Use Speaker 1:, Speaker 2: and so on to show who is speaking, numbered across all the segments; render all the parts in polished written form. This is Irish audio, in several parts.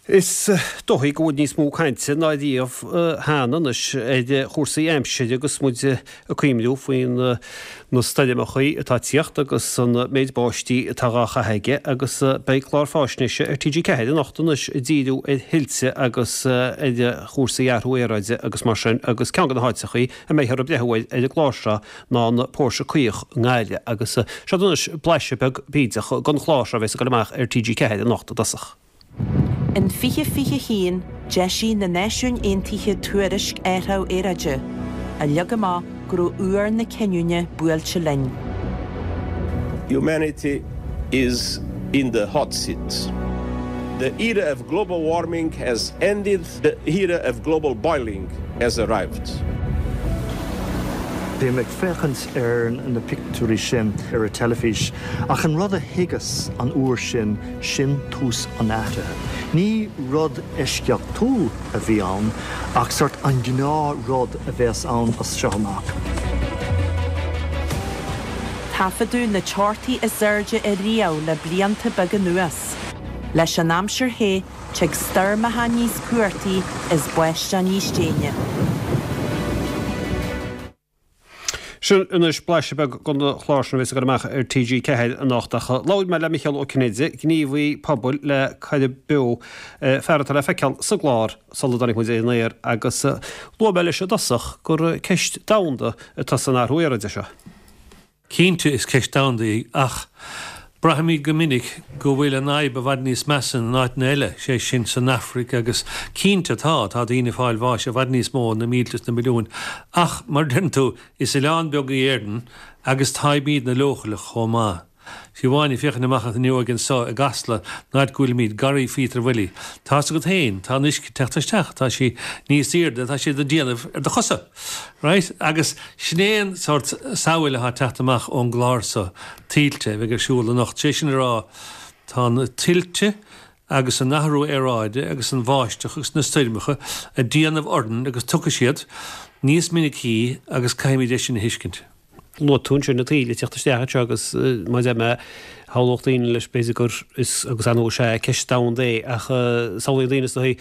Speaker 1: Is dóigh go bhfuil níos mó cainte ná riamh cheana anois ar chúrsaí aimsire agus muid ag cuimhniú faoi na stoirmeachaí atá ag tíocht agus an méid báistí atá dhá chaitheamh aige agus beidh clár fáisnéise ar TG4 anocht anois ag díriú ar thuilte agus ar chúrsaí athrú aeráide agus mar sin agus ceann de na háiteachaí a mbeifear ag breathnú air ar an gclár seo ná an Póirse Caoch i nGaillimh agus seo anois blaiseadh beag bídeach den chlár seo a bheas ag dul amach ar TG4 anocht i dtosach.
Speaker 2: In 2021, d'eisigh na Náisiúin Aontaithe tuairisc athrú aeráide, a leag amach go raibh uair na cinniúna buailte linn.
Speaker 3: Humanity is in the hot seat. The era of global warming has ended, the era of global boiling has arrived.
Speaker 4: Bhí mé ag féachaint ar na pictiúirí sin ar an teilifís ach an rud a thuigeas an uair sin, sin tús an athraithe. Ní rud eisceachtúil a bhí ann ach sort an gnáth rud a bheas ann as seo amach.
Speaker 2: Taifeadadh na teochtaí is airde ariamh le blianta beaga anuas. Leis an aimsir the, Tig stoirmeacha níos cumhachtaí is báisteach níos déine.
Speaker 1: Sin anois blaiseadh beag den chlár sin a bheas ag dul amach ar TG4 anocht. Ach labhair mé le Micheál Ó Cinnéide, gníomhaí pobail le Coirib Beo, fear atá le feiceáil sa gclár sula dtáinig muid ar an aer, agus luaigh mé leis i dtosach gur ceist domhanda atá san athrú aeráide seo.
Speaker 5: Cinnte, is ceist domhanda í, ach braithimid go minic go bhfuil an fhadhb i bhfad níos measa in áiteanna eile, sé sin san Afraic agus cinnte tá, tá daoine ag fáil bháis i bhfad níos mó, na mílte is na milliúin, ach mar a deireann tú, is oileán beag í Éirinn agus táimídne leochaileach chomh maith. Fiú amháin ag féachaint amach an fhuinneoig anso i gCasla, an áit go bhfuilimid, Garraí Phíotair Bhuilí, tá's agat féin, tá an uisce ag teacht isteach, tá sí níos aoirde, tá sé ag déanamh ar do chosa. Right? Agus sin é an sórt samhail atá ag teacht amach ón gclár so, Tuilte, a bheidh ar siúl anocht. Sé sin a rá, tá na tuilte agus an athrú aeráide agus an bháisteach agus na stoirmeacha ag déanamh orainn agus tiocfaidh siad níos minicí agus caithfimid é sin a thuiscint.
Speaker 1: Luaigh tú ansin na tuilte ag teacht isteach anseo agus mar a deir mé, shamhlódh daoine leis b'fhéidir gur is agus ar ndóigh is ea ceist domhanda é ach samhlaíonn daoine is dóigh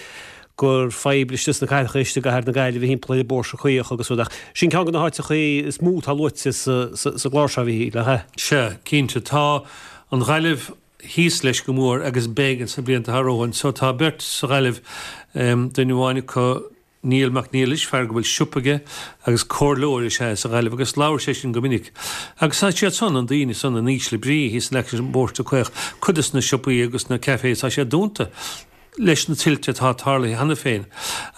Speaker 1: gur fadhb istigh sna cathracha istigh i gcathair na Gaillimhe thimpeall ar an bPóirse Caoch agus rud ach sin ceann de na háiteachaí is mó atá luaite sa sa gclár seo a Mhíchíl, nach ea?
Speaker 5: Sea, cinnte. Tá an Ghaillimh thíos leis go mór agus beidh ins na blianta atá romhainn. So tá beirt sa Ghaillimh, duine amháin acu, Niall Mac Niallais, fear go bhfuil siopa aige agus comhairleoir is ea é sa Ghaillimh agus labhair sé sin go minic. Agus tá siad san, an daoine san in ísle brí thíos in aice an bPóirse Caoch, cuid des na siopaí agus na cafés tá siad dúnta leis na tuilte atá tarlaithe cheana féin.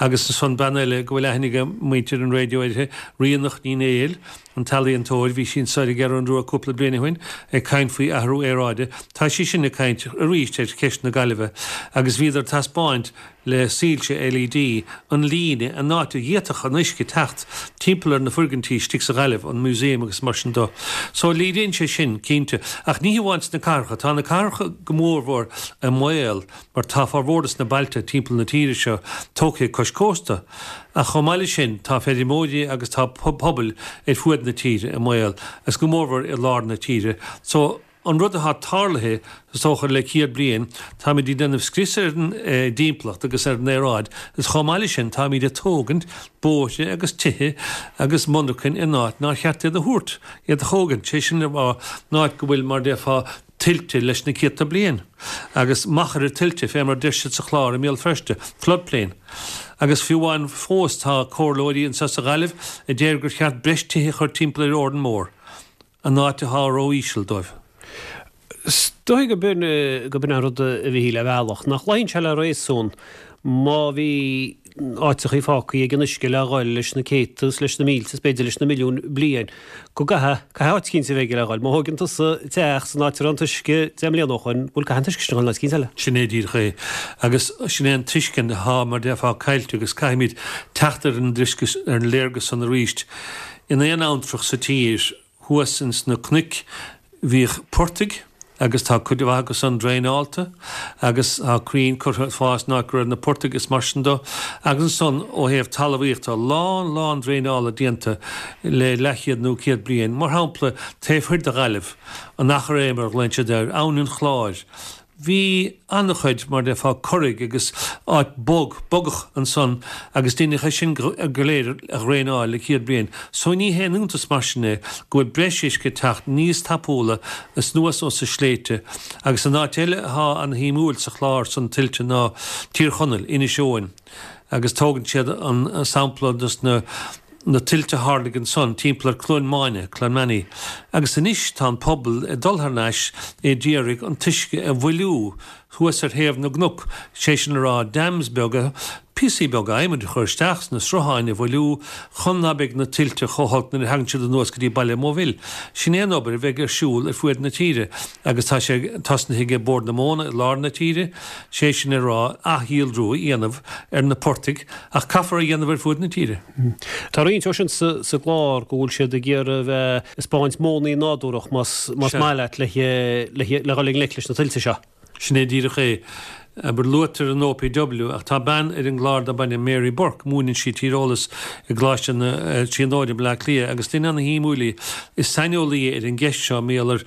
Speaker 5: Agus ansan bean eile go bhfuil aithne ag muintir an raidió uirthi, Ríonach Ní Néill, an t-ealaíontóir, bhí sí anso ar an gCeathrú Rua cúpla bliain ó shin ag caint faoi athrú aeráide. Tá sí sin ag caint arís ar cheist na Gaillimhe agus bhíodar ag taispeáint le soilse LED, an líne, an áit a bhféadfadh an uisce teacht timpeall ar na foirgintí istigh sa Ghaillimh, an museum agus mar sin do. So léiríonn sé sin, cinnte. Ach ní hamháin sna cathracha, tá na cathracha go mórmhór i mbaol mar tá formhór des na bailte timpeall na tíre seo tógtha cois cósta. Ach chomh maith leis sin, tá feirmeoirí agus tá pobail ar fuaid na tíre i mbaol, agus go mórmhór i lár na tíre. So. An rud atá tarlaithe, is dócha, le 100 bliain, táimid ag déanamh scrios ar an dtimpeallacht agus ar an aeráid agus chomh maith leis sin táimid ag tógaint bóithre agus tithe agus monarchain in áit nár cheart iad a thabhairt, iad a thógaint, sé sin le rá, in áit go bhfuil, mar a déarfá, tuilte leis na céadta bliain agus machaire tuilte, fé mar a deir siad sa chlár i mBéal Feirste, floodplain. Agus fiú amháin fós tá comhairleoirí anseo sa Ghaillimh a deir gur cheart breis tithe a chur timpeall ar Órán Mór. an áit atá ró-íseal dóibh.
Speaker 1: Is dóigh go b'in go b'in an rud a Mhíchíl ar bhealach, nach luíonn sé le réasún má bhí áiteachaí fágtha ag an uisce le dhul leis na céadta is leis na mílte is b'fhéidir leis na milliúin bliain, go gcaithfidh, caithfidh áit eicínt a bheith aige le dhul. Má thóigeann tusa teach san áit a raibh an t-uisce 10 mbliana ó shoin, bhuel caithfidh an t-uisce sin a dhul in áit eicínt eile.
Speaker 5: Sin é díreach é. Agus sin é an tuiscint atá, mar déarfá, caillte agus caithfimid teacht ar an dtuiscint, ar an léargas san arís. In aon abhantrach sa tír, thuas ins na cnoic, bhíodh portaigh agus tá cuid mhaith acu san draenáilte agus tá crainn curtha ag fás in áit go raibh na portaigh is mar sin do. Agus ansan ó thaobh talmhaíochta, a lán, lán draenála déanta le leathchéad nó céad bliain. Mar shampla, taobh thoir de Ghaillimh, an Achréidh mar a ghlaonn siad air, Abhainn an Chláir. Bhí an-chuid, mar déarfá, curaigh agus áit bog, bogach ansan agus deineadh é sin go léir a dhraenáil le céad bliain. So ní haon iontas mar sin é go bhfuil breis uisce ag teacht níos tapúla anuas ós na sléibhte. Agus an áit eile athá an-shuimiúil sa chlár san tuilte ná Tír Chonaill, Inis Eoghain. Agus tógann siad an sampla dos na. na tuilte a tharlaigh ansan timpeall ar Cluain Máine, Clonmany, agus anois tá an pobal ag dul thar n-ais a d'iarraidh an t-uisce a mhoilliú thuas ar thaobh na gcnoc, sé sin le rá dams beaga, píosaí beaga adhmaid a chur isteach sna srutháin a mhoilliú chun ná beidh na tuilte chomh holc nuair a thagann siad anuas go dtí Baile Mhóibhil. Sin é an obair a bheidh ar siúl ar fuaid na tíre agus tá sé tosnaithe ag Bord na Móna i lár na tíre, sé sin le rá athdhílriú a dhéanamh ar na portaigh ach caithfear a dhéanamh ar fuaid na tíre.
Speaker 1: Tá roinnt dhó sin sa gclár go bhfuil siad ag iarraidh a bheith ag 'spáint modhanna nádúrach más maith leat le dhul i ngleic leis na tuilte seo.
Speaker 5: Sin é díreach é. Abair, luaitear an OPW ach tá bean ar an gclár darb ainm Mary Burke, múineann sí tíreolas i gColáiste na Tríonóide i mBleá Cliath agus duine ana-shuimiúil í. Is saineolaí í ar an gceist seo, mar gheall ar,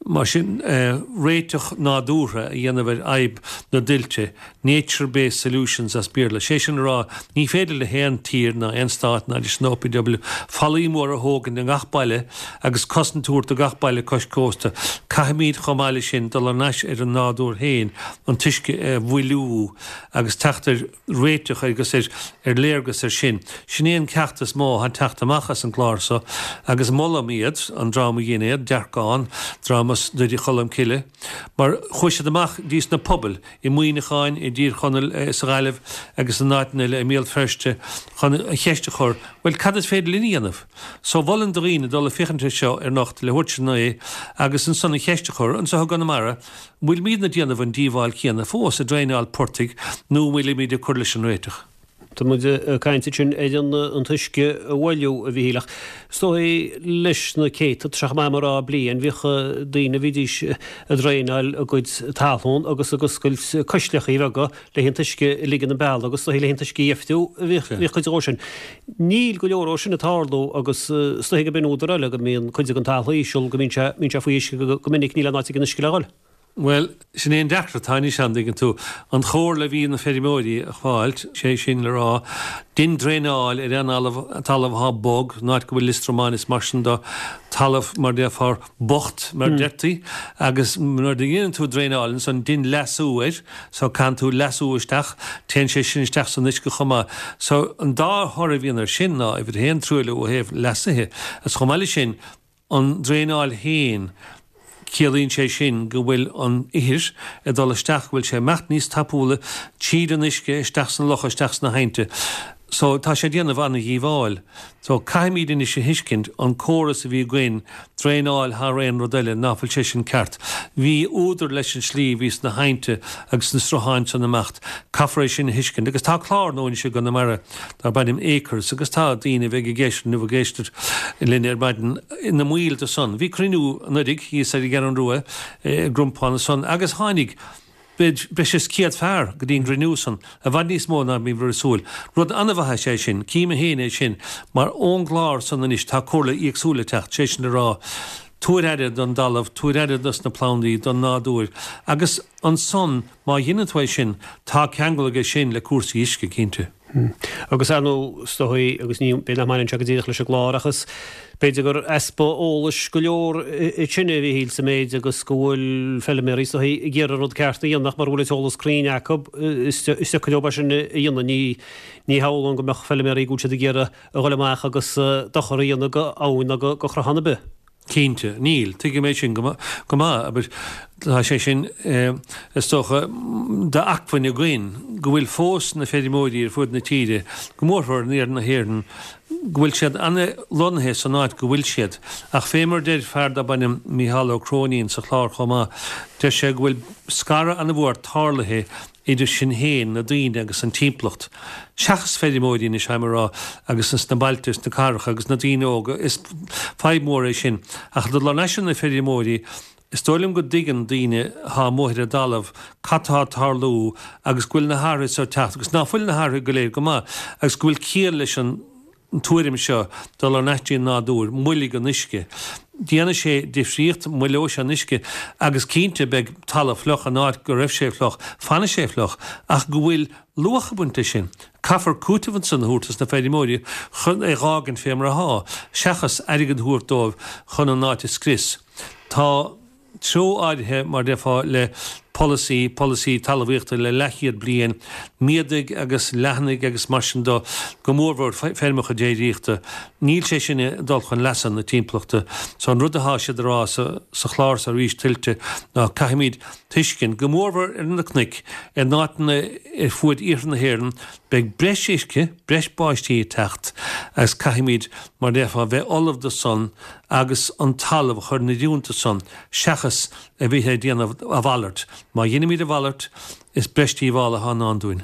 Speaker 5: mar sin, réiteach nádúrtha a dhéanamh ar fhadhb na dtuilte. Nature based solutions as Béarla. Sé sin a rá, ní féidir le haon tír ná aon stát ná leis an OPW fallaí móra a thógaint i ngach baile agus cosaint a thabhairt do gach baile cois cósta. Caithfimid chomh maith leis sin dul thar n-ais ar an nádúr féin, an t-uisce a mhoilliú agus teacht ar réiteach agus ar léargas ar sin. Sin é an ceacht is mó atá ag teacht amach as an gclár so agus molaim iad, an dream a dhein é, Dearcán, dream as Doire Cholm Cille, mar chuaigh siad amach dtí sna pobail, i Muineachán, i dTír Chonaill, sa Ghaillimh agus in áiteanna eile, i mBéal Feirste, chun an cheist a chur, bhuel, cad is féidir linn a dhéanamh? So, mholfainn do dhaoine dul ag féachaint air seo ar anocht leathuair tar éis a naoi agus ansan an cheist a chur, anseo i gConamara, an bhfuilimidne ag déanamh an díobháil chéanna fós, ag draenáil portaigh, nó an bhfuilimid ag cur leis an réiteach?
Speaker 1: Tá muid ag caint ansin ar an t-uisce a mhoilliú, a Mhíchíl, ach is dóigh leis na céadta, tá sé chomh maith liom a rá, bliain, bhíodh daoine, bhídís ag draenáil a gcuid talún agus ag oscailt coisleachaí beaga le an t-uisce a ligean an bealach agus is dóigh le an t-uisce a dheifriú a bhíodh cuid dhó sin. Níl go leor dhó sin ag tarlú agus is dóigh go b'in údar eile go mbíonn cuid den talamh íseal, go mbíonn sé, mbíonn sé faoi uisce go minic, níl aon áit ag an uisce le dhul.
Speaker 5: Bhuel, sin é an deacracht atá anois ann, dtuigeann tú. An chomhairle a bhí na feirmeoirí a fáilt, sé sin le rá, dein draenáil ar aon talamh athá bog, an áit go bhfuil liostromáin is mar sin de, talamh mar déarfá bocht mar deirtí, agus nuair a dheineann tú draenáil ansan dein leasú air, so caitheann tú leasú isteach, téann sé sin isteach san uisce chomh maith. So an dá thoradh a bhíonn air sin ná, uimhir a haon, truailliú ó thaobh leasaithe, agus chomh maith leis sin, An draenáil féin, ciallaíonn sé sin go bhfuil an ithir ag dul isteach, go bhfuil sé ag imeacht níos tapúla tríd an uisce isteach sna locha, isteach sna haibhnte. So, tá sé ag déanamh an-dhíobháil. So, caithfimid anois a thuiscint, an córas a bhí againn, draenáil thar aon rud eile, ná fuil sé sin ceart. Bhí údar leis an slí a bhí sna haibhnte agus sna srutháin san imeacht. Caithfear é sin a thuiscint. Agus tá clár nua anois i gConamara darb ainm Acres agus tá daoine a bheidh ag éisteacht nó ag éisteacht linn ar maidin ina mbaill de san. Bhí cruinniú anuiridh thíos ar an gCeathrú Rua i gCrompán ansan agus tháinig breis is 100 fear go dtí an gcruinniú san, i bhfad níos mó ná bhíomar ag súil. Rud an-mhaith is ea é sin, cím féin é sin, mar ón gclár san anois tá comhairle éagsúil ag teacht, sé sin le rá, tabhair aire don dtalamh, tabhair aire dos na plandaí, don nádúr agus ansan má dheineann tú é sin, tá ceangal aige sin le cúrsaí uisce, cinnte.
Speaker 1: Agus ar ndóigh, is dóigh, agus ní, b'fhéidir nach mbaineann sé go díreach leis an gclár ach is b'fhéidir gur easpa eolais go leor ansin a Mhíchíl sa méid agus go bhfuil feilméaraí is dóigh ag iarraidh an rud ceart a dhéanamh ach mura bhfuil an t-eolas cruinn acu is deacair leo é sin a dhéanamh. Ní, ní shamhlóinn go mbeadh feilméaraí go bhfuil siad ag iarraidh a dhul amach agus dochar a dhéanamh go abhainn ná go sruthán ar bith.
Speaker 5: Cinnte, níl. Tuigim é sin go maith. Abair, tá sé sin, is dócha, d'acmhainn againn, go bhfuil fós na feirmeoirí ar fud na tíre, go mórmhór in iarthar na hÉireann, go bhfuil siad an-lonnaithe san áit go bhfuil siad. Ach fé mar a deir fear darb ainm Mícheál Ó Cróinín sa chlár chomh maith, deir sé go bhfuil scaradh an-mhór tarlaithe idir sinn féin, na daoine agus an timpeallacht. Seachas feirmeoirí anois, táim a rá, agus sna bailte is na cathracha agus na daoine óga, is fadhb mhór é sin. Ach dul thar n-ais ar na feirmeoirí, is dóigh liom go dtuigeann daoine atá amuigh ar an dtalamh cad tá ag tarlú agus go bhfuil na hathruithe seo ag teacht agus ná fuil na hathruithe go léir go maith agus go bhfuil ciall leis an tuairim seo dul thar n-ais dtí an nádúr, moilligh an uisce. Déanfaidh sé difríocht, moilleoidh sé an uisce agus cinnte beidh talamh fliuch in áit go raibh sé fliuch, fanfaidh sé fliuch ach go bhfuil luach ag baint leis sin. Caithfear cúiteamh ansan a thabhairt dos na feirmeoirí chun é dh'fhágaint fé mar athá, seachas airgead a thabhairt dóibh chun an áit a scrios. Tá. treo áirithe, mar déarfá, le polasaí, polasaí talmhaíochta le leathchéad bliain, méadaigh agus leathnaigh agus mar sin de, go mórmhór feirmeacha déiríochta. Níl sé sin ag dul chun leasa na timpeallachta. So an rud atá siad a rá sa sa chlár so arís Tuilte ná caithfimid tuiscint, go mórmhór ar na cnoic, in áiteanna ar fuaid iarthar na hÉireann, beidh breis uisce, breis báistí ag teacht agus caithfimid, mar déarfá, bheith ullamh do san agus an talamh a chur in oiriúint do san, seachas a bheith ag déanamh a mhalairt. Má dheinimid a mhalairt, is breis díobhála atá i ndán dúinn.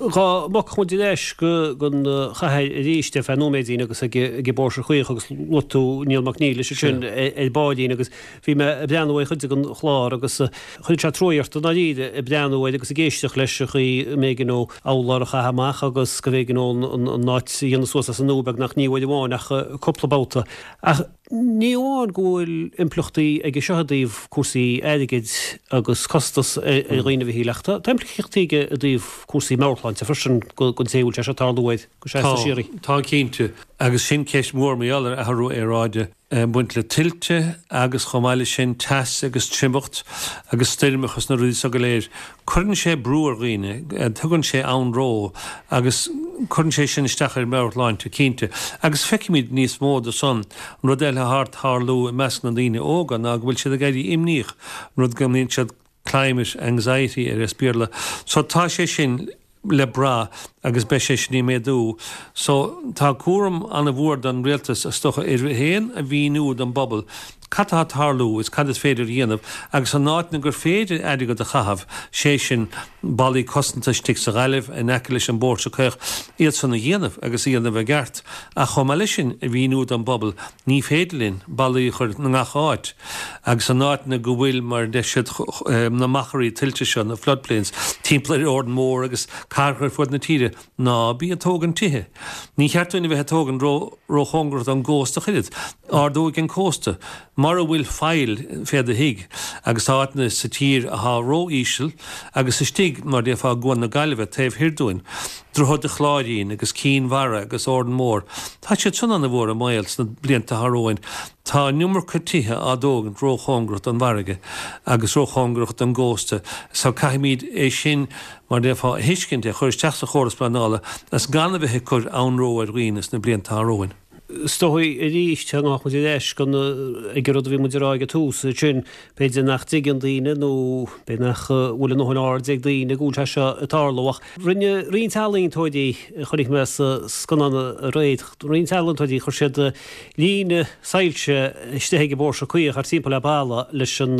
Speaker 1: Dhá mbogfadh muid ar ais go an chathair arís ar feadh nóiméidín agus ag an bPóirse Caoch agus luaigh tú Niall Mac Niallais ansin ar baillín agus bhí mé ag breathnú ar chuid den chlár agus chuir sé truaigh ort i ndáiríre ag breathnú air agus ag éisteacht leis an chaoi a mb'éigean dó urlár a chaitheamh amach agus go mb'éigean dó an áit a dhéanamh suas as an nua beagnach ní uair amháin ach cúpla babhta. Ach ní amháin go bhfuil impleachtaí aige seo i dtaobh cúrsaí airgid agus costas ar dhaoine a Mhichíl ach tá impleachtaí aige i dtaobh cúrsaí meabhairshláinte freisin don té a bhfuil sé seo ag tarlú air go seasta síoraí.
Speaker 5: Tá, tá cinnte. Agus sin ceist mhór mar gheall ar athrú aeráide. ag baint le tuilte agus chomh maith leis sin teas agus triomacht agus stoirmeacha is na rudaí so go léir. Cuireann sé brú ar dhaoine, tugann sé anró agus cuireann sé sin isteach ar mheabhairshláinte cinnte. Agus feicimid níos mó de san. An rud eile atá ag tarlú i measc na ndaoine óga ná go bhfuil siad ag éirí imníoch, an rud go mbíonn siad climate anxiety air as Béarla. So tá sé sin le brath agus beidh sé sin ag méadú. So tá cúram an-mhór don rialtas is dócha air féin a mhíniú don bpobal cad tá ag tarlú is cad is féidir a dhéanamh agus in áiteanna gur féidir airgead a chaitheamh, sé sin ballaí cosanta istigh sa Ghaillimh in aice leis an bPóirse Caoch, iad san a dhéanamh agus a dhéanamh i gceart. Ach chomh maith leis sin a mhíniú don bpobal ní féidir linn ballaí a chur i ngach áit. Agus in áiteanna go bhfuil, mar a deir siad, na machairí tuilte seo, na floodplains, timpeall ar Órán Mór agus cathracha ar fud na tíre, ná bí ag tógaint tithe. Ní cheart dúinn a bheith ag tógaint ró-chóngarach don gcósta ach oiread. Ardóidh an cósta. Mura bhfuil faill fé do thigh, agus tá áiteanna sa tír athá ró-íseal, agus istigh, mar déarfá, i gCuan na Gaillimhe, taobh thoir dúinn, Droichead an Chláirín agus Cinn Mhara agus Órán Mór, tá siad san ana-mhór i mbaol sna blianta atá romhainn. Tá an iomarca tithe á dtógaint róchóngarach don bhfarraige agus róchóngarach don gcósta so caithfimid é sin, mar déarfá, a thuiscint, é a chur isteach sa chóras pleanála agus gan a bheith ag cur anró ar dhaoine sna blianta atá romhainn.
Speaker 1: Is dóigh arís, gabhfaidh muid ar ais go ag an rud a bhí muid a rá ag an tús, sin, b'fhéidir nach dtuigeann daoine nó b'fhéidir nach bhfuil a ndóthain aird ag daoine go bhfuil sé seo ag tarlú ach rinne roinnt ealaíontóirí, a chonaic mé sa scannán aréir, roinnt ealaíontóirí, chuir siad líne soilse istigh ag an bPóirse Caoch thart timpeall ar balla leis an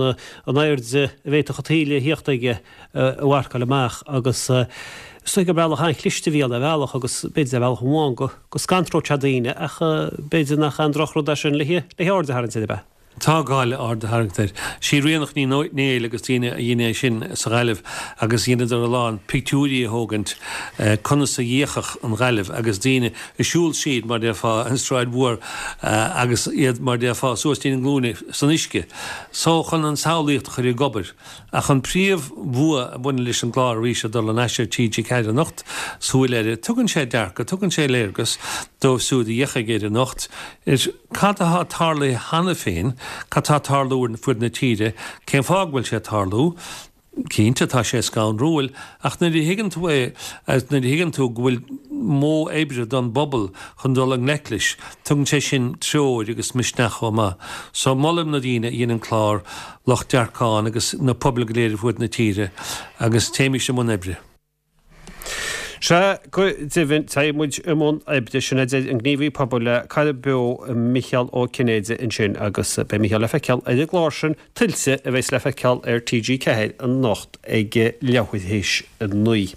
Speaker 1: airde a bhféadfadh an taoille a thíocht aige a mharcáil amach agus is dóigh gur bealach an-chliste a bhí ann ar bhealach agus b'fhéidir ar bhealach amháin go scanródh sé daoine ach b'fhéidir nach aon drochrud é sin le haird a tharraingt air, ab ea?
Speaker 5: Tá gá le aird a tharraingt air. Sí Ríonach Ní Néill agus daoine a dhein é sin sa Ghaillimh agus dheineadar a lán pictiúirí a thógaint conas a d'fhéachfadh an Ghaillimh agus daoine ag siúl tríd mar déarfá an Sráid Mhór agus iad mar déarfá suas dtína nglúine san uisce. So chun an tsamhlaíocht a chur ag obair. Ach an príomh bhua a bhaineann leis an gclár arís ag dul thar n-ais ar TG4 anocht, Súil Eile, tugann sé dearcadh, tugann sé léargas dóibh siúd a fhéachfaidh air anocht ar cad atá tarlaithe cheana féin, cad tá ag tarlú ar fud na tíre, cén fáth go bhfuil sé ag tarlú. Cinnte, tá sé scanrúil, ach nuair a thuigeann tú é, agus nuair a thuigeann tú go bhfuil modh oibre don bpobal chun dul i ngleic leis, tugann sé sin treoir agus misneach chomh maith. So, molaim na daoine a dhein an clár, lucht Dearcán agus na pobail go léir ar fuaid na tíre agus téimis i mbun oibre.
Speaker 1: Sea, go deimhin, téigh muid i mbun oibre, sin a deir an gníomhaí pobail le Cara Beo, Micheál Ó Cinnéide ansin agus beidh Micheál le feiceáil ar an gclár sin, Tuilte, a bheas le feiceáil ar TG4 anocht ag leathuair théis 9.